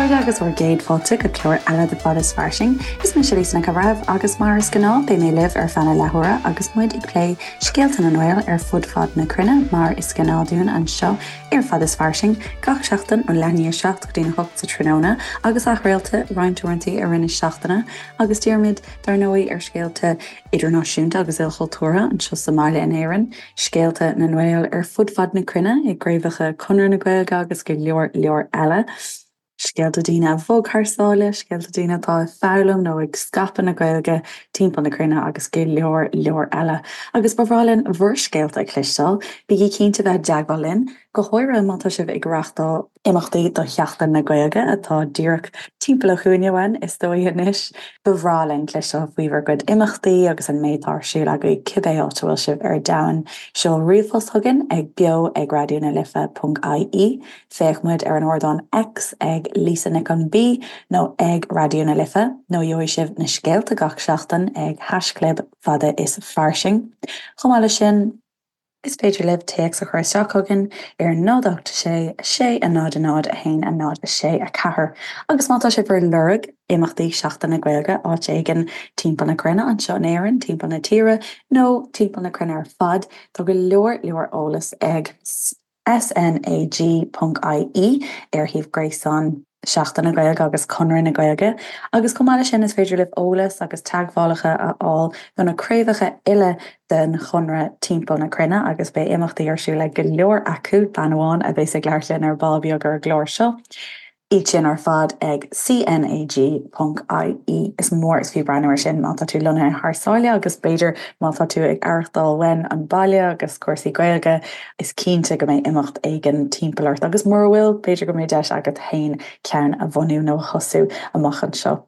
chairde agus bhur gcéad fáilte go clár eile de Fad is Fairsing. Is mise Lisa Nic an Bhreithimh agus mar is gnáth beidh mé libh ar feadh na leathuaire agus muid ag plé scéalta na nGael ar fud fad na cruinne mar is gnáth dúinn anseo ar Fad is Fairsing gach seachtain ó leath i ndiaidh 7 go dtí a 8 sa tráthnóna agus athchraolta roinnt uaireanta i rith na seachtaine agus dírímid dar ndóigh ar scéalta idirnáisiúnta agus ilchultúrtha anseo sa mbaile in Éirinn, scéalta na nGael ar fud fad na cruinne i gcraobhacha Chonradh na Gaeilge agus go leor leor eile, scéalta daoine a bhog thar sáile, scéalta daoine atá ag foghlaim nó ag scaipeadh na Gaeilge timpeall na cruinne agus go leor leor eile. Agus ba bhreá linn bhur scéalta a chloisteáil, bígí cinnte bheith i dteagmháil linn, go háirithe má tá sibh ag reáchtáil imeachtaí do Sheachtain na Gaeilge atá díreach timpeall an chúinne uainn, is dóigh anois. Ba bhreá linn cloisteáil faoi bhur gcuid imeachtaí agus an méid atá ar siúl agaibh cibé áit a bhfuil sibh ar domhan. Seol ríomhphost chugainn ag beo ag raidió na life ponc ie, féach muid ar an ardán X ag Lisa Nic an B nó ag Raidió na Life nó gheobhaidh sibh na scéalta gach seachtain ag haischlib fada is fairsing. Chomh maith leis sin, Is féidir libh téacs a chur isteach chugainn ar 0 8 6 6 0 0 1 0 6 4 agus má tá sibh ar lorg imeachtaí Seachtain na Gaeilge áit éigin timpeall na cruinne, anseo in Éirinn, timpeall na tíre nó timpeall na cruinne ar fad, tá go leor leor eolas ag SNAG ponc IE ar shuíomh gréasáin Seachtain na Gaeilge agus Conradh na Gaeilge agus chomh maith leis sin is féidir libh eolas agus teagmhálacha a fháil do na craobhacha uile den Chonradh timpeall na cruinne agus beidh imeachtaí ar siúl ag go leor acu, bean amháin a bheas ag labhairt linn ar ball beag ar an gclár seo. Iad sin ar fad ag CNAG ponc IE. Is mór is fiú breathnú ar sin má tá tú lonnaithe thar sáile agus b'fhéidir má tá tú ag aireachtáil uainn an baile agus cúrsaí Gaeilge, is cinnte go mbeidh imeacht éigin timpeall ort agus mura bhfuil, b'fhéidir go mbeidh deis agat féin ceann a bhunú nó a thosú amach anseo.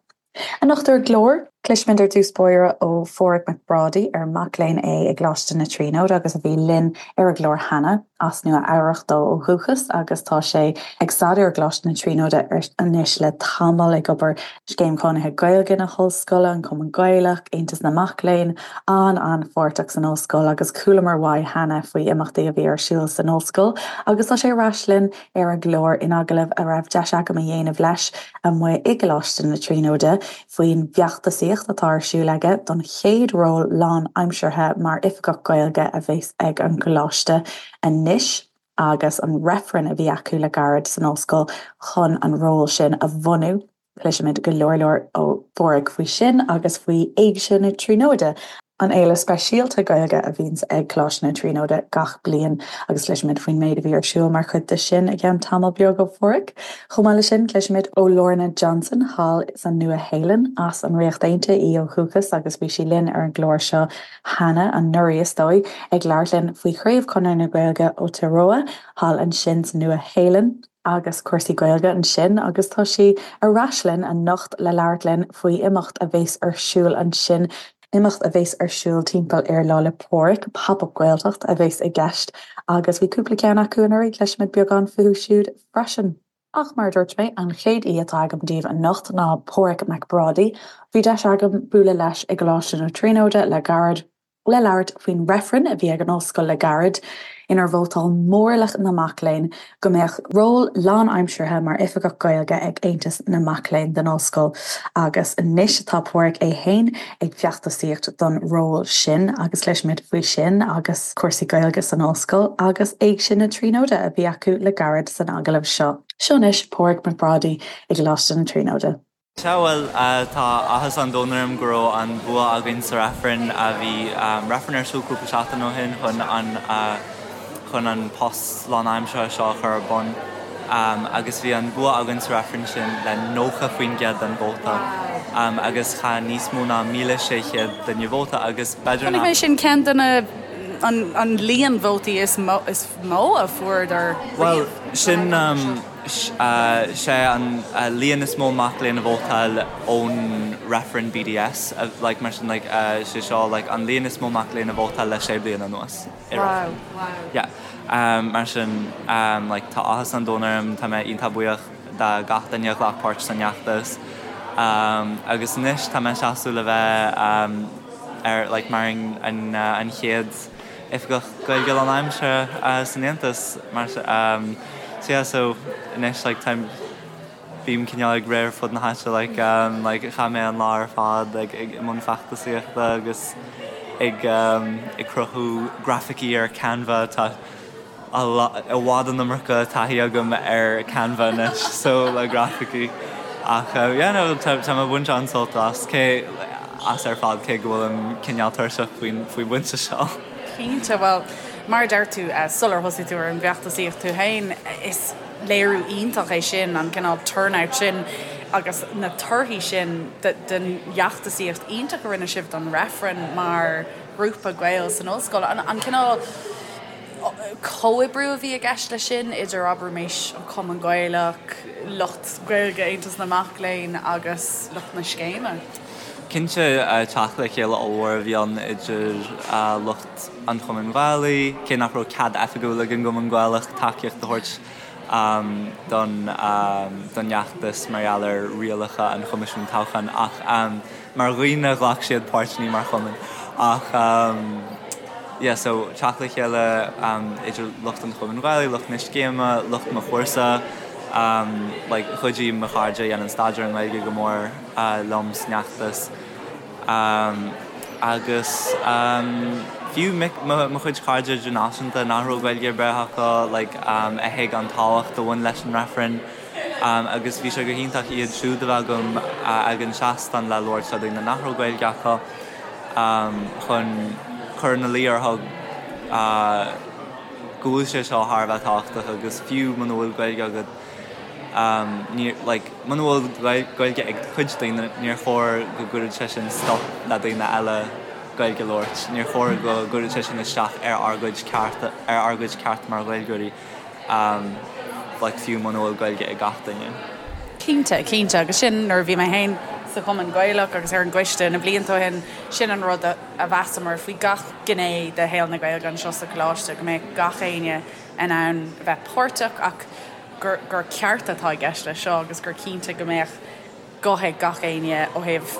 Anocht ar an gclár, cloisfimid ar dtús báire ó Pháraic Mac Brádaigh, ar mac léinn é i gColáiste na Tríonóide agus a bhí linn ar an gclár cheana. As Nua Eabhrach dó ó dhúchas agus tá sé ag staidéar i gColáiste na Tríonóide anois le tamall, ag obair Scéim Chónaithe Gaeilge na hOllscoile, an Cumann Gaelach, Aontas na Mac Léinn, an-an-pháirteach san ollscoil agus chualamar uaidh cheana faoi imeachtaí a bhí ar siúl san ollscoil agus tá sé ar ais linn ar an gclár in agallamh a raibh deis agam a dhéanamh leis amuigh i gColáiste na Tríonóide faoin bhfeachtasaíocht atá ar siúl aige don chéad ról lánaimseartha mar Oifigeach Gaeilge a bheas ag an gColáiste anois agus an reifreann a bhí acu le gairid san ollscoil chun an ról sin a bhunú. Cloisfimid go leor leor ó Pháraic faoi sin agus faoi Éigse na Tríonóide, an fhéile speisialta Gaeilge a bhíonns ag Coláiste na Tríonóide gach bliain agus cloisfimid faoin méid a bhí ar siúl mar chuid de sin i gceann tamall beag ó Pháraic. Chomh maith leis sin, cloisfimid ó Lorna Johnson thall sa Nua-Shéalainn, as an Ríocht Aontaithe í ó dhúchas agus bhí sí linn ar an gclár seo cheana, anuraidh is dóigh, ag labhairt linn faoi Chraobh Chonradh na Gaeilge Aotearoa thall ansin sa Nua-Shéalainn. agus cúrsaí Gaeilge ansin agus tá sí ar ais linn anocht le labhairt linn faoi imeacht a bheas ar siúl ansin, imeacht a bheas ar siúl timpeall ar Lá 'le Pádraig, Pop Up Gaeltacht a bheas i gceist agus bhí cúpla ceann acu anuraidh, cloisfimid beagán fúthu siúd freisin. Ach mar a dúirt mé, an chéad aoi atá agam daoibh anocht ná Páraic Mac Brádaigh. Bhí deis agam bualadh leis i gColáiste na Tríonóide le gairid. le labhairt faoin reifreann a bhí ag an ollscoil le gairid, inar vótáil mórlach na mac léinn go mbeadh ról lánaimseartha mar Oifigeach Gaeilge ag Aontas na Mac Léinn den ollscoil agus anois tá Páraic é féin ag feachtasaíocht don ról sin agus cloisfimid faoi sin agus cúrsaí Gaeilge san ollscoil agus Éigse na Tríonóide a bhí acu le gairid san agallamh seo. Seo anois Páraic Mac Brádaigh i gColáiste na Tríonóide. Sea, bhuel, tá áthas an domhain orm go raibh an bua againn sa reifreann. Bhí reifreann ar siúl cúpla seachtain ó shin chun an chun an post lánaimseartha seo a chur ar bun agus bhí an bua againn sa reifreann sin le 90% den vóta agus chaith níos mó ná 1,600 duine vóta agus b'fhéidir nach. Chonaic mé sin ceann de na an líon vótaí is mó a fuaireadar riamh. Bhuel, sin. Sé an líon is mó mac léinn a vótáil ón reifreann BDS, like mar sin like sé seo like an líon is mó mac léinn a vótáil le sé bliana anuas i reifreann. Yeah. Mar sin like tá áthas an domhain orm, tá mé iontach buíoch de gach duine a ghlac páirt san fheachtas. Agus anois tá mé ag seasamh le bheith ar like mar an an chéad Oifigeach Gaeilge lánaimseartha san Aontas mar so yeah so anois like táim Bím cineál ag rith ar fud na háite like like chaith mé an lá ar fad like ag i mbun feachtasaíochta agus ag ag cruthú grafaicí ar Canva tá i bhfad an iomarca taithí agam ar Canva anois so le grafaicí ach yeah no tá tá mé ag baint an-sult as cé as ar fad cé go bhfuilim cineál tuirseach faoin faoin bpointe seo. Cinnte, bhuel mar a deir tú sular thosaigh tú ar an bhfeachtasaíocht tú féin is léiriú iontach é sin, an cineál turnout sin agus na torthaí sin den fheachtasaíocht iontach a rinne sibh don reifreann mar ghrúpa Gael san ollscoil. An cineál comhoibriú a bhí i gceist leis sin idir, abraimis, an Cumann Gaelach, lucht Gaeilge Aontas na Mac Léinn agus lucht na scéime. Cinnte, teacht le chéile ollmhór a bhí ann idir lucht. an Chumainn Ghaelaigh, cé nach raibh cead oifigiúil ag an gCumann Gaelach tacaíocht a thabhairt don don fheachtas mar gheall ar rialacha an Choimisiúin Toghcháin ach mar dhaoine ghlac siad páirt, ní mar chumann. Ach yeah so teacht le chéile idir lucht an Chumainn Ghaelaigh, lucht na scéime, lucht mo chúrsa, like chuidigh mo chairde a dhéanann staidéar i nGaeilge go mór liom san fheachtas. Agus fiú mo chuid cairde idirnáisiúnta nach raibh Gaeilge ar bith acu, like, a thuig an tábhacht a bhain leis an reifreann agus bhí sé go hiontach iad siúd a bheith agam ag an seastán le labhairt le daoine nach raibh Gaeilge acu chun cur ina luí orthu go bhfuil sé seo thar a bheith tábhachtach agus fiú muna bhfuil Gaeilge agat, Níor, like, muna bhfuil Gaeilge ag cuid daoine, níor chóir go gcuirfeadh sé sin stop le daoine eile Gaeilge a labhairt. Níor chóir go gcuirfeadh sé sin isteach ar ár gcuid cearta, ar ár gcuid ceart mar Ghaeilgeoirí, like, fiú muna bhfuil Gaeilge ag gach duine. Cinnte, cinnte. Agus sin, nuair a bhí mé féin sa Chumann Gaelach agus ar an gcoiste na blianta ó shin, sin an rud a mheasamar faoi gach gné de shaol na Gaeilge anseo sa Choláiste, go mbeadh gach éinne in ann a bheith páirteach ach gur gur ceart atá i gceist leis seo agus gur cinnte go mbeadh guth ag gach éinne ó thaobh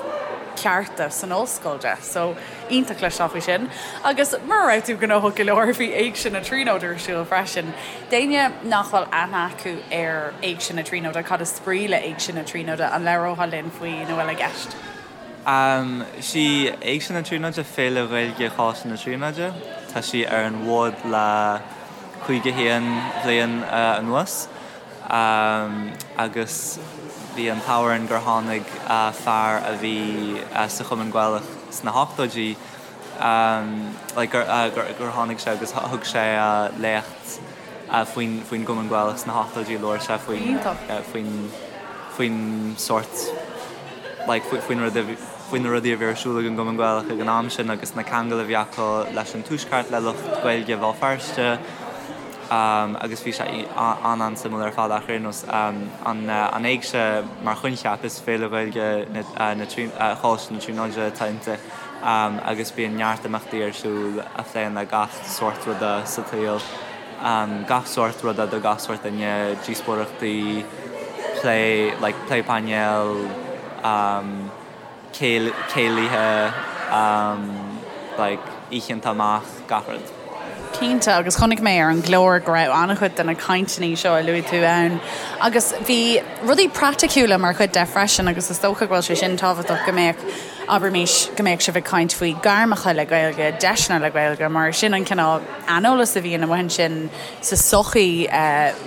cearta san ollscoil de. So, iontach cloisteáil faoi sin. Agus mura raibh tú gnóthach go leor, bhí Éigse na Tríonóide ar siúl freisin. D'éinne nach bhfuil aithne acu ar Éigse na Tríonóide, cad is brí le Éigse na Tríonóide? An labhrófá linn faoina bhfuil i gceist? Sí Éigse na Tríonóide féile Ghaeilge Choláiste na Tríonóide. Tá sí ar an bhfód le 51 bhliain anuas agus bhí an t-ádh orainn gur tháinig fear a bhí sa Chumann Gaelach sna hochtóidí like gur tháinig sé agus thug sé léacht faoin faoin gCumann Gaelach sna hochtóidí labhair sé faoin faoin faoin sórt like faoin rud a faoi na rudaí a bhí ar siúl ag an gCumann Gaelach ag an am sin agus na ceangail a bhí acu leis an Tuaisceart, le lucht Gaeilge Bhéal Feirste agus bhí sé an-an-suimiúil ar fad ach ar aon nós an Éigse mar choincheap is féile Ghaeilge na Choláiste na Tríonóide atá inti agus bíonn neart imeachtaí ar siúl a phléann le gach sórt ruda sa tsaol. Gach sórt ruda do gach sórt duine, díospóireachtaí, plé, like plé painéil, céilithe, like oícheanta amach, gach rud. Cinnte, agus chonaic mé ar an gclár go raibh an-chuid de na cainteanna seo a luaigh tú ann agus bhí rudaí praiticiúla mar chuid de freisin agus is dócha go bhfuil sé sin tábhachtach go mbeadh, abraimis, go mbeadh sibh ag caint faoi gairmeacha le Gaeilge, deiseanna le Gaeilge mar sin an cineál aineolas a bhíonn amuigh ansin sa tsochaí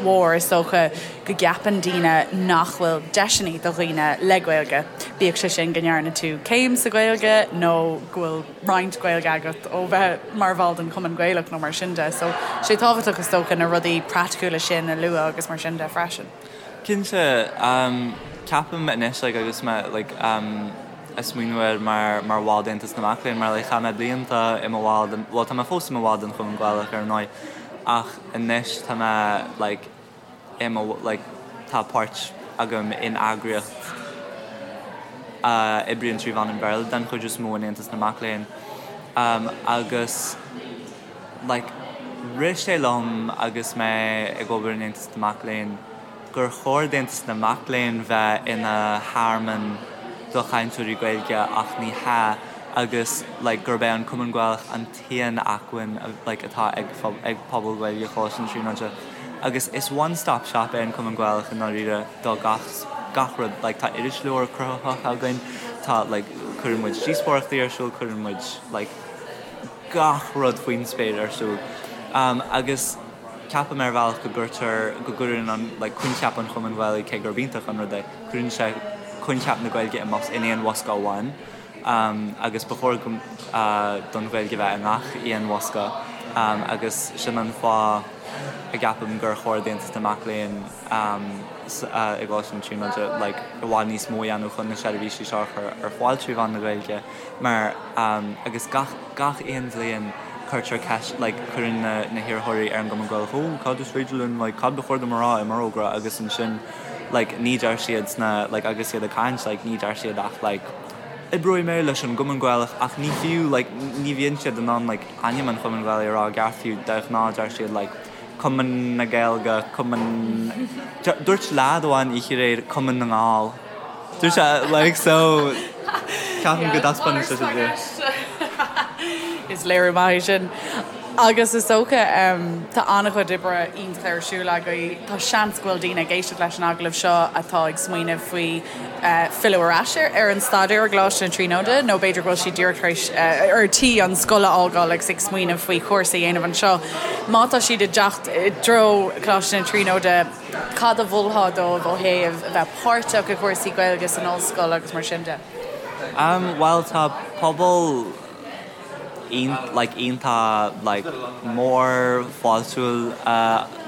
mhór, is dócha go gceapann daoine nach bhfuil deiseanna do dhaoine le Gaeilge, bíodh sé sin go ndearna tú céim sa Ghaeilge nó go bhfuil roinnt Gaeilge agat ó bheith mar bhall den Chumann Gaelach nó mar sin de. So, sé tábhachtach is dócha na rudaí praiticiúla sin a lua agus mar sin de freisin. Cinnte, ceapaim anois like agus mé like ag smaoineamh air mar mar bhall d'Aontas na Mac Léinn mar like chaith mé blianta i mo bhall den, bhuel tá mé fós i mo bhall den Chumann Gaelach ar ndóigh ach anois tá mé like i mo like tá páirt agam in eagraíocht a oibríonn trí mheán an Bhéarla den chuid is mó in Aontas na Mac Léinn agus like rith sé liom agus mé ag obair in Aontas na Mac Léinn gur chóir d'Aontas na Mac Léinn bheith ina thearmann do chainteoirí Gaeilge ach ní hea agus like gurb é an Cumann Gaelach an t-aon acmhainn like atá ag ag pobal Gaeilge Choláiste na Tríonóide agus is one stop shop é an Cumann Gaelach i ndáiríre do gach. gach rud like tá irisleabhar cruthaitheach againn, tá like cuireann muid díospóireachtaí ar siúl, cuireann muid like gach rud faoin spéir ar siúl. Agus ceapaim ar bhealach go gcuirtear, go gcuireann an like coincheap an Chumainn Ghaelaigh, cé gurb iontach an rud é, cuireann sé coincheap na Gaeilge in aon bhosca amháin. Agus ba chóir don Ghaeilge bheith i ngach aon bhosca agus sin an fáth a gceapaim gur chóir d'Aontas na Mac Léinn i gColáiste na Tríonóide like i bhfad níos mó a dhéanamh chun na seirbhísí seo a chur ar fáil trí mheán na Gaeilge mar agus gach gach aon bhliain cuirtear ceist like cuireann na na hiarrthóirí ar an gCumann Gaelach oh cad is féidir linn like cad ba chóir dom a rá i m'fhorógra agus ansin like ní deir siad sna like agus iad ag caint like ní deir siad ach like oibreoidh mé leis an gCumann Gaelach ach ní fiú like ní bhíonn siad in ann like ainm an Chumainn Ghaelaigh a rá i gceart fiú de ghnáth deir siad like Cumann na Gaeilge, Cumann Dúirt leaid amháin oíche aréir Cumann na nGall. Dúirt sé like so ceapaim go dtaispeánann sé sin Is léiriú maith é sin. Agus is dócha tá an-chuid oibre iontach ar siúl agaibh. Tá seans go bhfuil daoine ag éisteacht leis an agallamh seo atá ag smaoineamh faoi filleadh ar ais ar an staidéar i gColáiste na Tríonóide nó b'fhéidir go bhfuil siad díreach tar éis ar tí an scoil a fhágáil agus ag smaoineamh faoi chúrsa a dhéanamh anseo. Má tá siad ag teacht i dtreo Choláiste na Tríonóide, cad a mholfá dóibh ó thaobh a bheith páirteach i gcúrsaí Gaeilge san ollscoil agus mar sin de? Bhuel tá pobal like iontach like mór fáiltiúil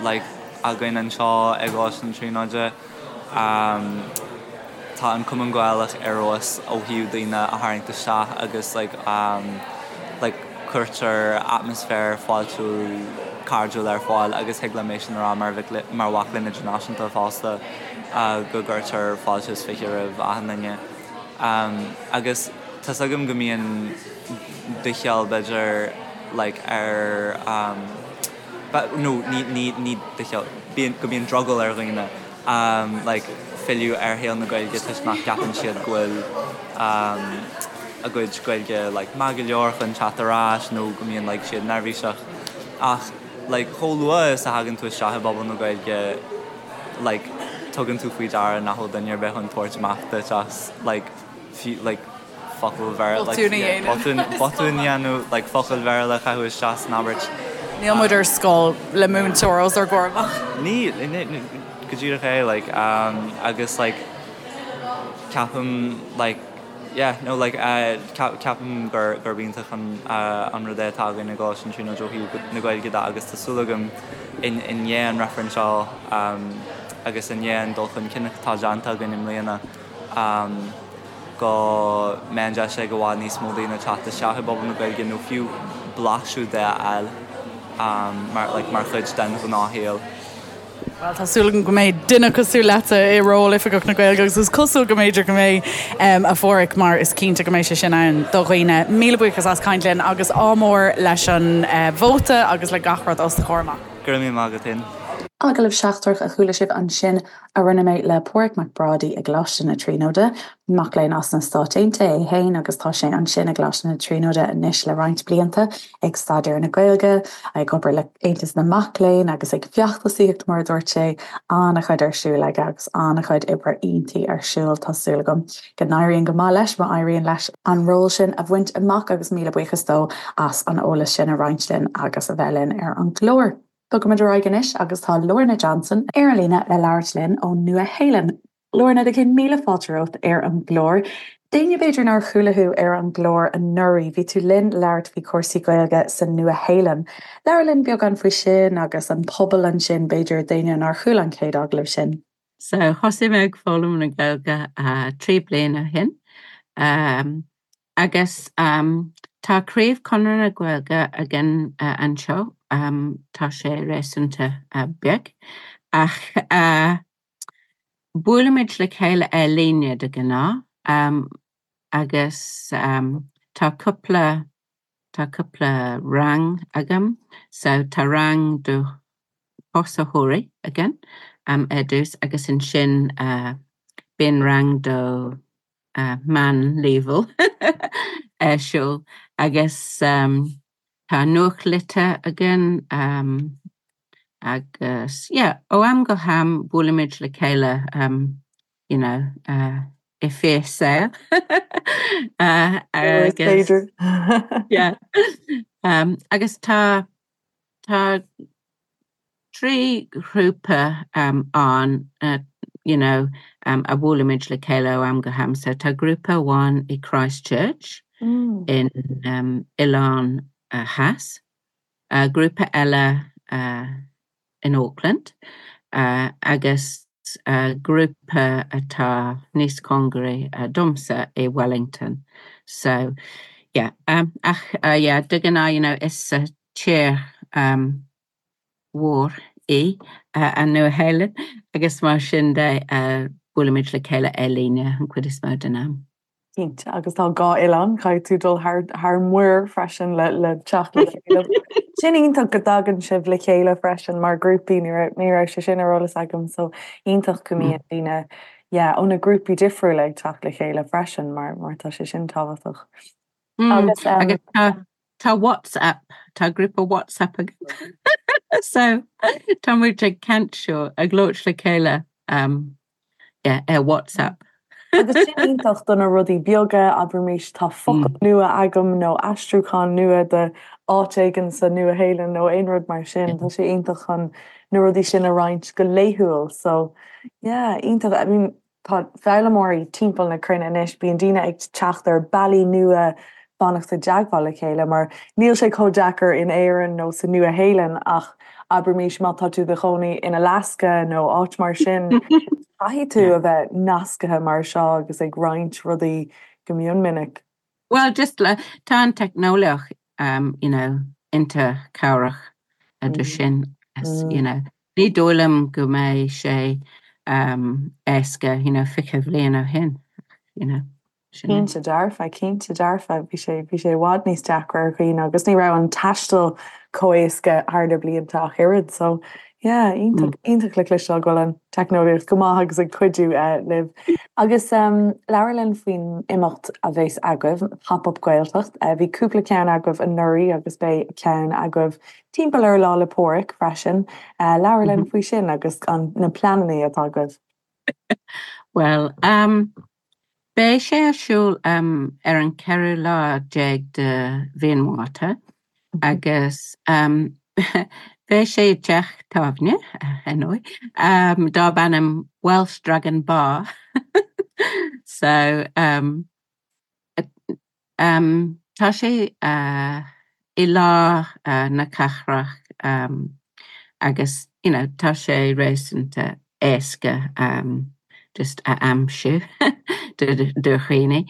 like againn anseo i gColáiste na Tríonóide. Tá an Cumann Gaelach ar fheabhas ó thaobh daoine a tharraingt isteach agus like like cuirtear atmaisféar fáiltiúil cairdiúil ar fáil agus thig liom é sin a rá mar mar mhac léinn idirnáisiúnta fosta go gcuirtear fáilte is fiche roimh achan duine. Agus tá's agam go mbíonn doicheall b'fhéidir like ar nó ní ní ní doicheall bíonn go mbíonn drogall ar dhaoine like filleadh ar shaol na Gaeilge toisc nach gceapann siad go bhfuil a gcuid Gaeilge like maith go leor chun teacht ar ais nó go mbíonn like siad neirbhíseach ach like chomh luath is a thagann tú isteach i bpobal na Gaeilge like tugann tú faoi deara nach bhfuil duine ar bith chun tabhairt amach duit as like fiú like focal Bhéarla like Botún a dhéanamh. botún botún a dhéanamh like focal Bhéarla a chaitheamh isteach san abairt. Níl muid ar scoil le múinteoir os ár gcomhair amach. Ní ní go díreach é like um agus like ceapaim like yeah no like uh ceapaim gur gurb iontach an uh an rud é atá againn i gColáiste na Tríonóide ó thaobh na Gaeilge de agus tá súil agam in i ndiaidh an reifrinn seo um agus i ndiaidh an dul chun cinn atá déanta againn i mbliana go mbeidh an deis ag i bhfad níos mó daoine teacht isteach i bpobal na Gaeilge nó fiú blaiseadh de a fháil mar like mar chuid den ghnáthshaol. Bhuel, tá súil agam go mbeidh duine cosúil leatsa i ról Oifigeach na Gaeilge agus is cosúil go mb'fhéidir go mbeidh, a Pháraic, mar is cinnte go mbeidh sé sin ann do dhaoine. Míle buíochas as caint linn agus ádh mór leis an vóta agus le gach rud os do chomhair amach. Go raibh míle maith agat féin. Agallamh seachtrach a chuala sibh ansin a rinne mé le Páraic Mac Brádaigh i gColáiste na Tríonóide. Mac léinn as na Stáit Aontaithe é féin agus tá sé ansin i gColáiste na Tríonóide anois le roinnt blianta ag staidéar na Gaeilge, ag obair le Aontas na Mac Léinn agus ag feachtasaíocht mar a dúirt sé. An-chuid ar siúl aige agus an-chuid oibre iontaí ar siúl. Tá súil agam go n-éiríonn go maith leis má éiríonn leis an ról sin a bhaint amach agus míle buíochas dó as an eolas sin a roinnt linn agus a bheith linn ar an gclár. Bogaimid ar aghaidh anois agus tá Lorna Johnson ar an líne le labhairt linn ón Nua-Shéalainn. Lorna, do chéad míle fáilte romhat ar an gclár. D'éinne b'fhéidir nár chuala thú ar an gclár anuraidh, bhí tú linn labhairt faoi chúrsaí Gaeilge sa Nua-Shéalainn. Labhair linn beagán faoi sin agus an pobal ansin b'fhéidir d'éinne nár chuala an chéad agallamh sin. So thosaigh mé ag foghlaim na Gaeilge 3 bliana ó shin agus tá craobh Conradh na Gaeilge againn anseo, tá sé réasúnta beag ach buailimid le chéile ar líne de ghnáth agus tá cúpla Tá cúpla rang agam. So tá rang do thosaitheoirí againn ar dtús agus ansin bíonn rang do meán-leibhéal ar siúl agus tá nuachtlitir againn agus yeah ó am go ham buailimid le chéile. you know, i fíor-saol. Agus yeah. Agus tá tá 3 ghrúpa ann you know a bhuailimid le chéile ó am go ham. So tá grúpa amháin i Christchurch in Oileán Theas, grúpa eile in Auckland agus grúpa atá níos cóngaraí domsa i Wellington. So yeah ach yeah de ghnáth you know is tír mhór í an Nua-Shéalainn agus mar sin de buailimid le chéile ar líne an chuid is mó den am. Cinnte, agus tá dhá oileán, caithfidh tú dul thar thar muir freisin le le teacht le chéile. Sin iontach go dtagann sibh le chéile freisin mar grúpaí, ní raibh ní raibh sé sin ar eolas agam so iontach go mbíonn daoine yeah ó na grúpaí difriúla ag teacht le chéile freisin mar mar tá sé sin tábhachtach. Agus um, agus tá WhatsApp, tá grúpa WhatsApp againn so tá muid ag caint seo ag labhairt le chéile um, yeah, ar WhatsApp. Agus sin iontach do na rudaí beaga, abraimis tá focal mm. nua agam nó aistriúchán nua de áit éigin sa Nua-Shéalainn nó aon rud mar sin, tá sé iontach chun na rudaí sin a roinnt go laethúil. So yeah, iontach. I mean, Tá foghlaimeoirí timpeall na cruinne anois, bíonn daoine ag teacht ar bealaí nua fanacht i dteagmháil le chéile mar níl sé chomh deacair in Éirinn nó sa Nua-Shéalainn ach abraimis má tá tú i do chónaí in Alaska nó áit mar sin, caithfidh tú a bheith nascaithe mar seo agus ag roinnt rudaí go mion minic. Well just le, tá an teicneolaíocht um, you know, iontach cabhrach do sin, you know. Ní dóigh liom go mbeidh sé éasca, you know, 20 bhliain ó shin, you know. Cinnte dearfa, cinnte dearfa. Bhí sé, bhí sé i bhfad níos deacra ar dhaoine agus ní raibh an taisteal chomh éasca thar na blianta ach oiread. So, yeah, iontach, iontach le cloisteáil go bhfuil an teicneolaíocht go maith agus ag cuidiú libh. Agus labhair linn faoin imeacht a bheas agaibh, Pop Up Gaeltacht. Bhí cúpla ceann agaibh anuraidh agus beidh ceann agaibh Timpeall ar Lá 'le Pádraig freisin. Labhair linn faoi sin agus an na pleananna atá agaibh. Bhuel, beidh sé ar siúl ar an ceathrú lá déag de mhí an Mhárta agus beidh sé i dteach tábhairne, ar ndóigh, darb ainm Welsh Dragon Bar. So, Tá sé i lár na cathrach agus you know tá sé réasúnta éasca just a aimsiú do dhaoine.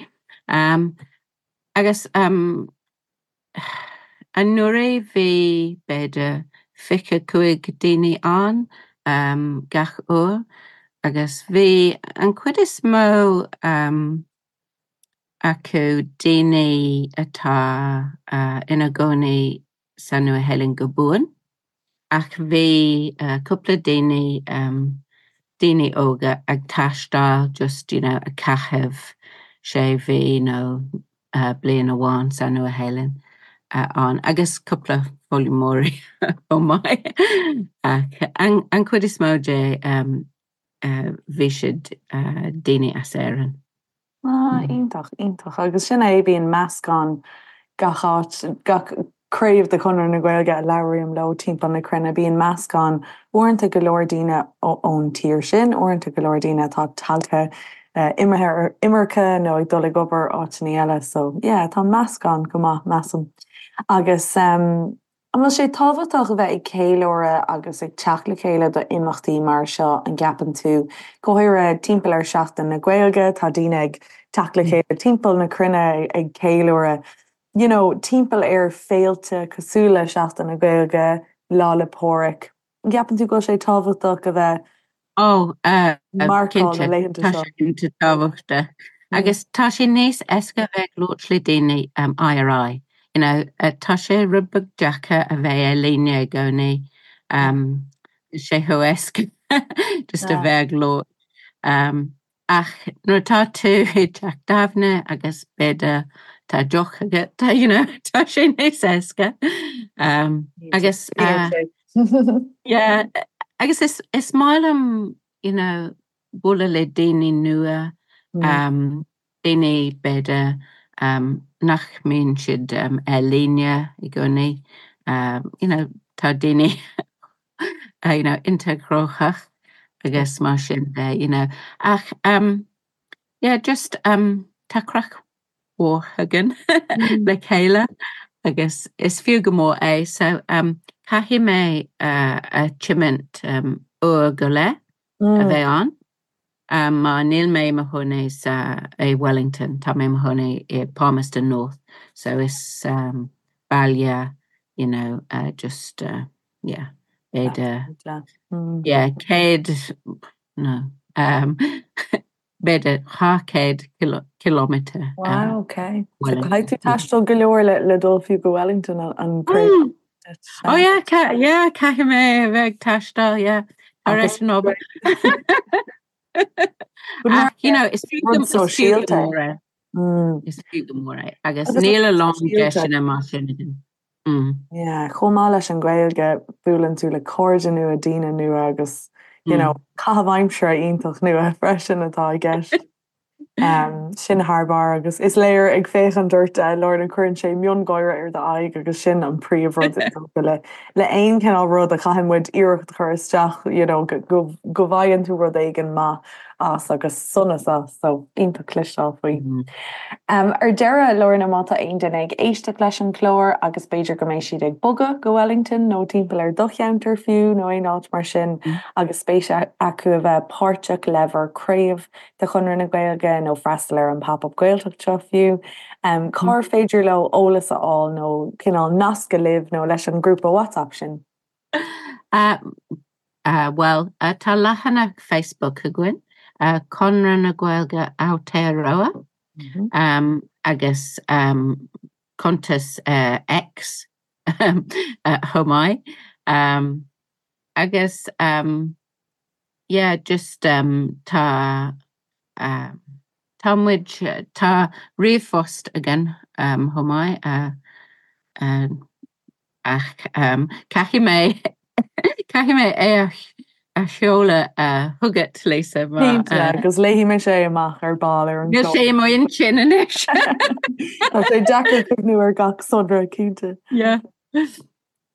Agus anuraidh bhí b'fhéidir 25 daoine ann gach uair agus bhí an chuid is mó acu daoine atá ina gcónaí sa Nua-Shéalainn go buan, ach bhí cúpla daoine, daoine óga ag taisteal just you know ag caitheamh sé mhí nó bliain amháin sa Nua-Shéalainn ann agus cúpla foghlaimeoirí chomh maith ach an chuid is mó de bhí siad daoine as Éirinn. Ah, iontach, iontach. Agus sin é, bíonn meascán gach áit, gach craobh de Chonradh na Gaeilge a labhraím leo timpeall na cruinne, bíonn meascán, uaireanta go leor daoine ón tír sin, uaireanta go leor daoine atá tagtha, imithe ar imirce nó ag dul ag obair áiteanna eile. So, yeah, tá meascán go maith, measaim. Agus. An bhfuil sé tábhachtach a bheith ag ceiliúradh agus ag teacht le chéile do imeachtaí mar seo, an gceapann tú? Go háirithe timpeall ar Seachtain na Gaeilge, tá daoine ag teacht le chéile timpeall na cruinne ag ceiliúradh, you know, timpeall ar féilte cosúil le Seachtain na Gaeilge, Lá 'le Pádraig. An gceapann tú go bhfuil sé tábhachtach a bheith Ó, marcáil na laethanta seo? Tá sé iontach tábhachtach. Agus tá sé níos éasca a bheith ag labhairt le daoine aghaidh ar aghaidh. You know, tá sé rud beag deacair a bheith ar líne i gcónaí. Tá sé chomh éasca just a bheith ag labhairt. Ach nuair atá tú i dteach tábhairne agus b'fhéidir tá deoch agat, you know, tá sé níos éasca. Agus yeah, agus is, is maith liom, you know, bualadh le daoine nua, daoine b'fhéidir nach mbíonn siad ar líne i gcónaí, you know tá daoine you know iontach gnóthach agus mar sin de you know ach yeah just tá craic mhór againn le chéile agus is fiú go mór é so caithfidh mé a tiomáint uair go leith a bheith ann mar níl mé i mo chónaí sa i Wellington, tá mé i mo chónaí i Palmerston North so is baile you know just yeah b'fhéidir yeah 100 no b'fhéidir 200 kilometre. Wow, ok. So caithfidh tú taisteal go leor le dul fiú go Wellington an craobh. Oh yeah, yeah, caithfidh mé a bheith ag taisteal, yeah, tar éis an obair. Ach, you know, is fiú go mór é. Is fiú go mór é. Agus níl a lán deiseanna mar sin againn. Yeah, chomh maith leis an Ghaeilge, buaileann tú le cairde nua, daoine nua agus, you know, caitheamh aimsire iontach nua freisin atá i gceist. Sin thar barr agus is léir ag féachaint ort, Lorna, cuireann sé miongháire ar d'aghaidh agus sin an príomhrud is dócha le le aon chineál rud a chaitheann muid iarracht a chur isteach, you know, go go bhfaigheann tú rud éigin maith as agus sonas as, so iontach cloisteáil faoi. Ar deireadh, Lorna, má tá aon duine ag éisteacht leis an chlár agus b'fhéidir go mbeidh siad ag bogadh go Wellington nó timpeall ar do cheantar fiú nó aon áit mar sin agus spéis acu a bheith páirteach le bhur craobh de Chonradh na Gaeilge nó freastal ar an Pop Up Gaeltacht seo fiú, cár féidir leo eolas a fháil nó cineál nascadh libh nó leis an ngrúpa WhatsApp sin? Bhuel, tá leathanach Facebook againn, Conradh na Gaeilge Aotearoa, agus cuntas X chomh maith. Agus yeah, just tá tá muid, tá ríomhphost againn chomh maith. Ach caithfidh mé, caithfidh mé é a sheoladh chugat, Lisa, mar. Cinnte, agus léifidh mise é amach ar ball ar an Níl sé i m'intinn anois. Tá sé deacair cuimhniú ar gach sonra, cinnte. Yeah.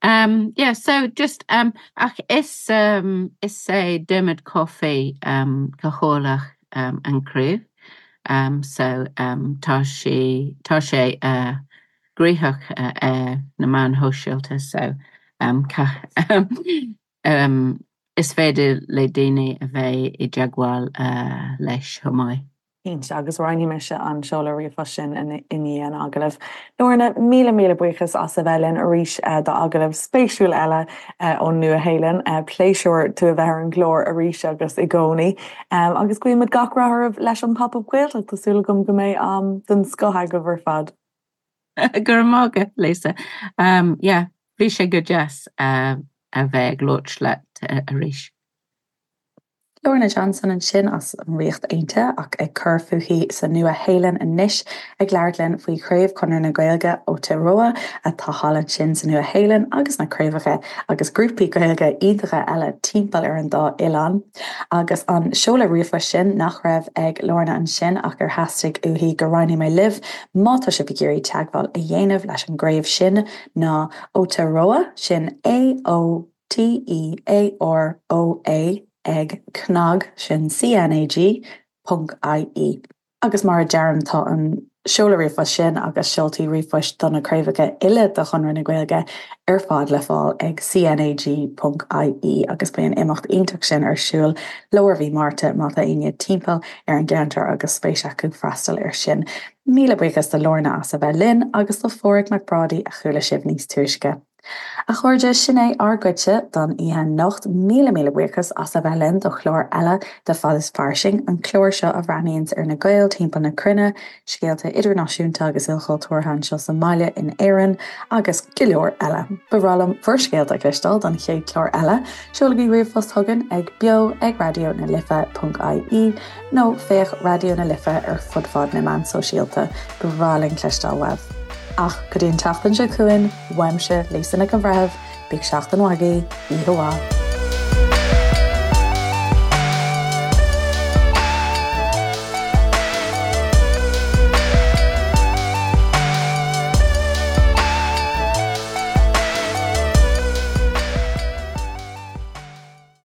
Um, yeah, so just, um, ach is, um, is é Dermot Coffey um, cathaoirleach um, an craobh. Um, so um, tá sé, tá sé uh, gnoitheach ar na meáin shóisialta so is féidir le daoine a bheith i dteagmháil leis chomh maith. Cinnte, agus roinnfidh mise an seoladh ríomhphoist sin i ndiaidh an agallaimh. Lorna, míle míle buíochas as a bheith linn arís d'agallamh spéisiúil eile ón Nua-Shéalainn. Pléisiúr tú a bheith ar an gclár arís agus i gcónaí. Agus guímid gach rath oraibh leis an Pop Up Gaeltacht, tá súil agam go mbeidh am den scoth agaibh ar fad. Go raibh maith agat, Lisa. Yeah, bhí sé go deas a bheith ag labhairt leat arís. Lorna Johnson ansin as an Ríocht Aontaithe ach ag cur fúithi sa Nua-Shéalainn anois ag labhairt linn faoi Chraobh Chonradh na Gaeilge Aotearoa atá thall ansin sa Nua-Shéalainn agus na craobhacha agus grúpaí Gaeilge iontacha eile timpeall ar an dá oileán. Agus an seoladh ríomhphoist sin nach raibh ag Lorna ansin ach ar theastaigh uaithi go roinnfidh mé libh má tá sibh ag iarraidh teagmháil a dhéanamh leis an gcraobh sin ná Aotearoa, sin A-O-T-E-A-R-O-A ag cnag, sin C-N-A-G, ponc I-E. Agus mar a deirim, tá an seoladh ríomhphoist sin agus seoltaí ríomhphoist do na craobhacha uile de Chonradh na Gaeilge ar fad le fáil ag CNAG.ie agus beidh an imeacht iontach sin ar siúl lár mhí Márta má tá éinne timpeall ar an gceantar agus spéis acu freastal air sin. Míle buíochas do Lorna as a bheith linn agus do Pháraic Mac Brádaigh a chuala sibh níos túisce. A chairde, sin é ár gcuidse don oíche anocht. Míle míle buíochas as a bheith linn do chlár eile de Fad is Fairsing, an clár seo a bhreathnaíonns ar na Gaeil timpeall na cruinne, scéalta idirnáisiúnta agus ilchultúrtha anseo sa mbaile in Éirinn, agus go leor eile. Ba bhreá liom bhur scéalta a chloisteáil don chéad chlár eile. Seolaigí ríomhphost chugainn ag beo ag raidió na life ponc ie nó féach Raidió na Life ar fud fad na meán sóisialta. Ba bhreá linn cloisteáil uaibh. Ach go dtí an tseachtain seo chugainn, uaimse, Lisa Nic an Bhreithimh, bíodh seachtain mhaith agaibh, oíche mhaith.